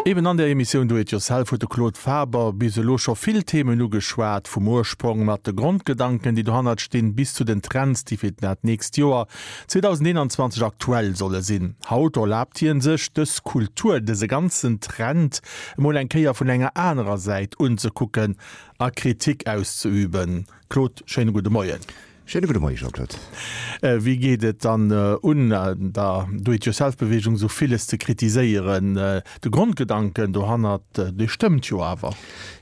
Eben an der Emissioun Do It Yourself huet de Claude Faber bis elo scho vill Themen ugeschwat, vum Ursprong mat de Grondgedanken, déi dohannert stinn, bis zu den Trends, déi fir dat nächst Joer 2021 aktuell solle sinn. Haut erlaabt hien sech, dës Kultur, dëse ganzen Trend emol eng Kéier vun enger anerer Säit unzekucken a Kritik auszeüben. Claude, schéine gudde Moien. Schéine gudde Moie Jean-Claude. Wéi geet et dann un, der Do-it-yourself-Beweegung esou villes ze kritiséieren? De Grondgedanken dohannert, dee stëmmt jo awer.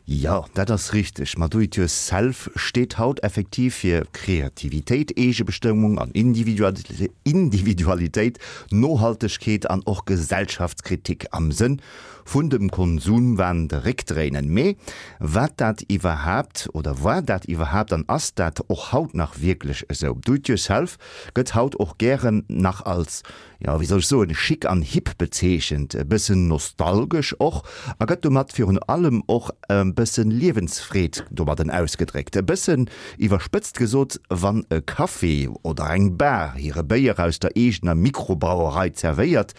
Jo, dat ass richteg. Ma Do-it-yourself steet haut effektiv fir Kreativitéit, Eegebestëmmung an Individualitéit, Nohaltegkeet an och Gesellschaftskritik am Sënn vun dem Konsumwahn de Réck dréinen. Mee wat dat iwwerhaapt, oder war dat iwwerhaapt an ass dat och haut nach wierklech esou? Do it yourself gëtt haut och gären nach als, jo wéi soll ech soen, chic an hip bezeechent, e bëssen nostalgesch och a gëtt domat virun allem och e bëssen Liewensfreed domadden ausgedréckt. E bëssen iwwerspëtzt gesot, wann e Café oder eng Bar hire Béier aus der eegener Mikrobrauerei zerwéiert,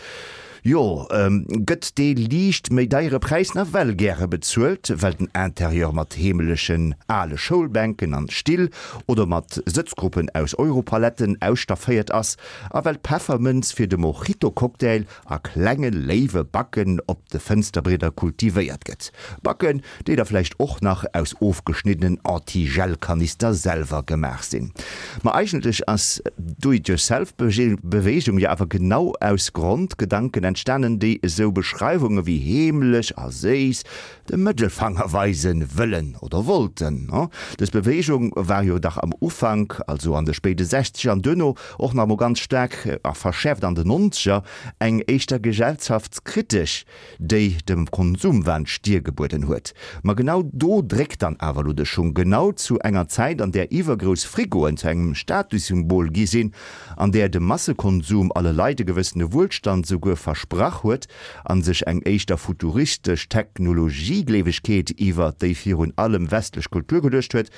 Jo, gëtt dee liicht méi deiere Präis nawell gäre bezuelt, well den Interieur mat heemelechen ale Schoulbänken an Still oder mat Sëtzgruppen aus Europaletten ausstafféiert ass a well d'Peffermënz fir de Mojito-Cocktail a klenge léiwe Backen op de Fënsterbrieder kultivéiert gëtt. Backen, déi da vläicht och nach aus ofgeschniddenen Anti-Gel-Kanister selwer gemaach sinn. Ma eigentlech ass d'Do-it-yourself-Beweegung jo awer genau aus Grondgedanken entstanen, déi esou Beschreiwunge wéi heemlech a séiss de Mëttelfanger weise wëllen oder wollten. Dës Beweegung war jo dach am Ufank, also an de spéide Sechzeger an duerno och nach emol ganz staark a verschäerft an den Nonzeger, eng éischter gesellschaftskritesch déi dem Konsumwahn d'Stier gebueden huet. Ma genau do dréckt dann awer elo de Schung, genau zu enger Zäit, an där iwwergrouss Frigoen zu engem Statussymbol gi sinn, an där de Massekonsum alle Leit e gewëssene Wuelstand souguer versprach huet a sech eng éischter futuristesch Technologiegleewegkeet iwwer déi virun allem westlech Kultur geluecht huet,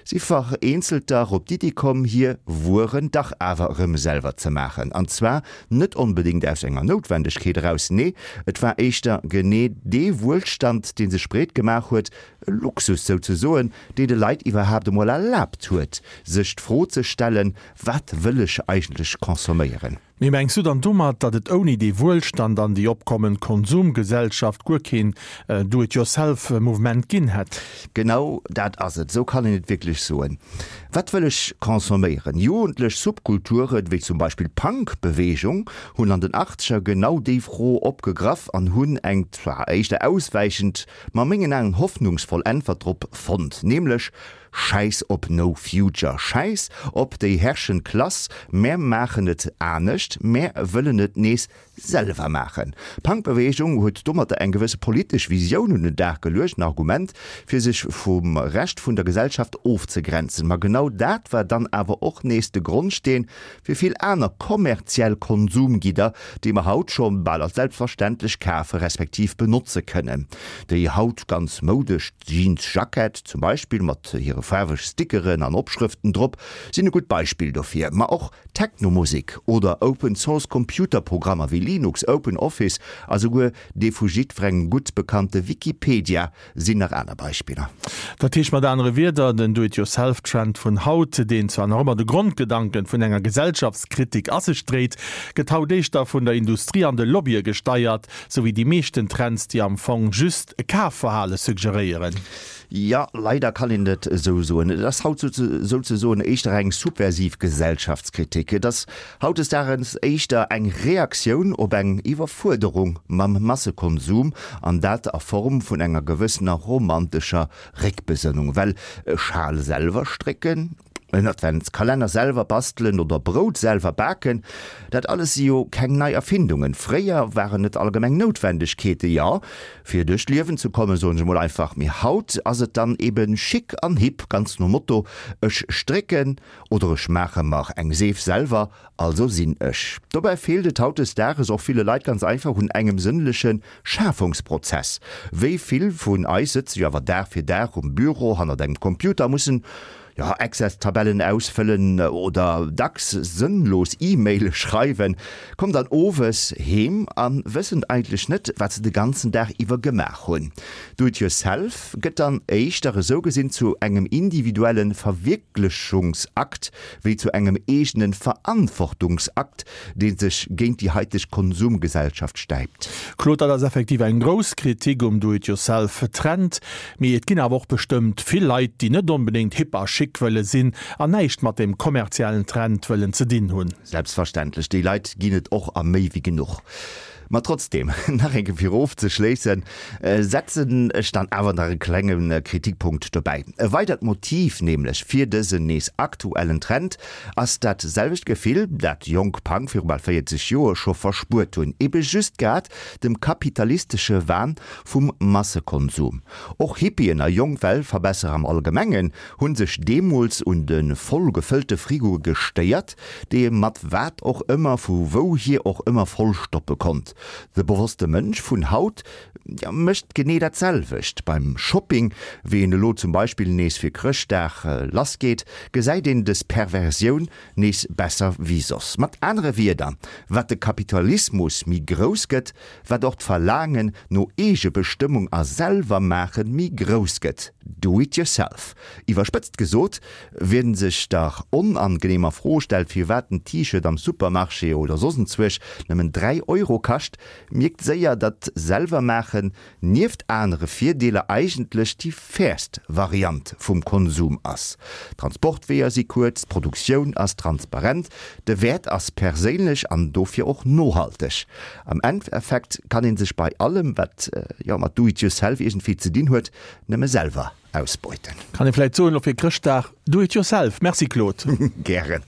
Si vereenzelter op d'Iddi komm, hir Wueren dach awer erëm selwer ze maachen. An zwar net onbedéngt aus enger Noutwendegkeet eraus, nee, et war éischter genee dee Wuelstand, dee sech breet gemaach huet, e Luxus souzesoen, dee de Leit iwwerhaapt emol erlaabt huet, sech d'Fro ze stellen, Wat wëll ech eigentlech consomméieren? Mee mengs du dann domat, datt et ouni dee Wuelstand an déi opkommend Konsumgesellschaft guer keen Do-it-yourself-Mouvement ginn hätt? Genau dat ass et, esou kann een et wierklech soen. Wat wëll ech consomméieren? Jugendlech Subkulturen, wéi zum Beispill d'Punk-Beweegung, hunn an den Achtzeger genau déi Fro opgegraff an hunn eng zwar éischter auswäichend, ma a mengen Aen hoffnungsvoll Äntwert drop fonnt, nämlech Schäiss op No Future, schäiss op déi herrschend Klass, mär maachen et anescht, mär wëllen et nees selwer maachen. D'Punk-Beweegung huet domatter eng gewësse politesch Visioun un den Dag geluecht, en Argument fir sech vum Rescht vun der Gesellschaft ofzegrenzen. Ma genau dat war dann awer och nees de Grondsteen fir vill aner kommerziell Konsumgidder, déi mer haut scho bal als selbstverständlech kafe respektiv benotze kënnen. Déi haut ganz moudesch Jeansjackett zum Beispill mat hire faarweg Stickeren an Opschrëften drop sinn e gutt Beispill dofir. Ma och Technomusek oder Open Source Computerprogrammer wéi Linux, Open Office a souguer dee vu jiddwerengem gutt bekannte Wikipedia sinn nach aner Beispiller. Dat heescht mat anere Wierder, den Do-it-yourself-Trend vun haut, deen zwar nach ëmmer de Grondgedanken vun enger Gesellschaftskritik a sech dréit, gëtt haut éischter vun der Industrie an de Lobbye gesteiert, sou wéi déi meeschten Trends, déi am Fong just e Kafverhale suggeréieren. Jo, leider kann een et esou soen. Et ass haut souzesoen éischter eng subversiv Gesellschaftskritik. Et ass hautdesdaagens éischter eng Reaktioun op eng Iwwerfuerderung mam Massekonsum, an dat a Form vun enger gewëssener romantescher Réckbesënnung. Well e Schal selwer strécken, en Adventskalenner selwer bastelen oder Brout selwer baken, dat alles si jo keng nei Erfindungen. Fréier waren et allgemeng Noutwendegkeete, jo, fir duerch d'Liewen ze kommen, soen ech emol einfach. Mee haut ass et dann eben chic an hip, ganz nom Motto, ech strécken oder ech maache mer eng Seef selwer, also sinn ech. Dobäi feelt et hautdesdaages och ville Leit ganz einfach un engem sënnleche Schafungsprozess. Wéi vill vun eis sëtze jo awer Dag fir Dag um Büro hannert engem Computer a mussen, Jo, Excel-Tabellen ausfëllen oder dacks sënnlos E-Maile schreiwen, kommen dann owes heem a wëssen eigentlech net, wat se de ganzen Dag iwwer gemaach hunn. Do it yourself gëtt dann éischter esou gesinn zu engem individuelle Verwierklechungsakt wéi zu engem eegene Verantwortungsakt, dee sech géint déi haiteg Konsumgesellschaft stäipt. Claude, dat ass effektiv eng grouss Kritik um Do-it-yourself-Trend. Mee et ginn awer och bestëmmt vill Leit, déi net onbedéngt hip a chic wëlle sinn an näischt mat dem kommerziellen Trend wëllen ze dinn hunn. Selbstverständlech, déi Leit ginn et och a méi wéi genuch. Ma trotzdem, nach eng Kéier fir ofzeschléissen, setzen ech dann awer nach e klenge Kritikpunkt dobäi. E weidert Motiv nämlech fir dësen nees aktuellen Trend ass dat selwecht Gefill, dat jonk Punk viru bal 40 Joer scho verspuert hunn, ebe just grad dem kapitalistesche Wahn vum Massekonsum. Och Hippien a jonk Weltverbesserer am Allgemengen hu sech deemools un de voll gefëllte Frigoe gestéiert, déi ee mat wat och ëmmer vu wouhier och ëmmer vollstoppe konnt. De bewosste Mënsch vun haut mécht genee dat selwecht. Beim Shopping, wéi en elo zum Beispill nees fir Chrëschtdag lassgeet, gesäit een des Perversioun nees besser wéi soss. Mat anere Wierder, wat de Kapitalismus méi grouss gëtt, wat och d'Verlaangen no Eegebestëmmung a Selwermaachen méi grouss gëtt, do it yourself. Iwwerspëtzt gesot, wien sech der onangeneemer Fro stellt, firwat en T-Shirt am Supermarché oder soss enzwuesch nëmmen 3 Euro kascht, mierkt séier, datt Selwermaachen nieft anere Virdeeler eigentlech déi fairst Variant vum Konsum ass. D'Transportweeër si kuerz, d'Produktioun ass transparent, de Wäert ass perséinlech an dofir och nohalteg. Am Endeffekt kann ee sech bei allem, wat jo mat Do it yourself iergendwéi ze dinn huet, nëmme selwer ausbeuten. Kann ee vläit soen, elo fir Chrëschtdag, Do it yourself. Merci Claude. Gären.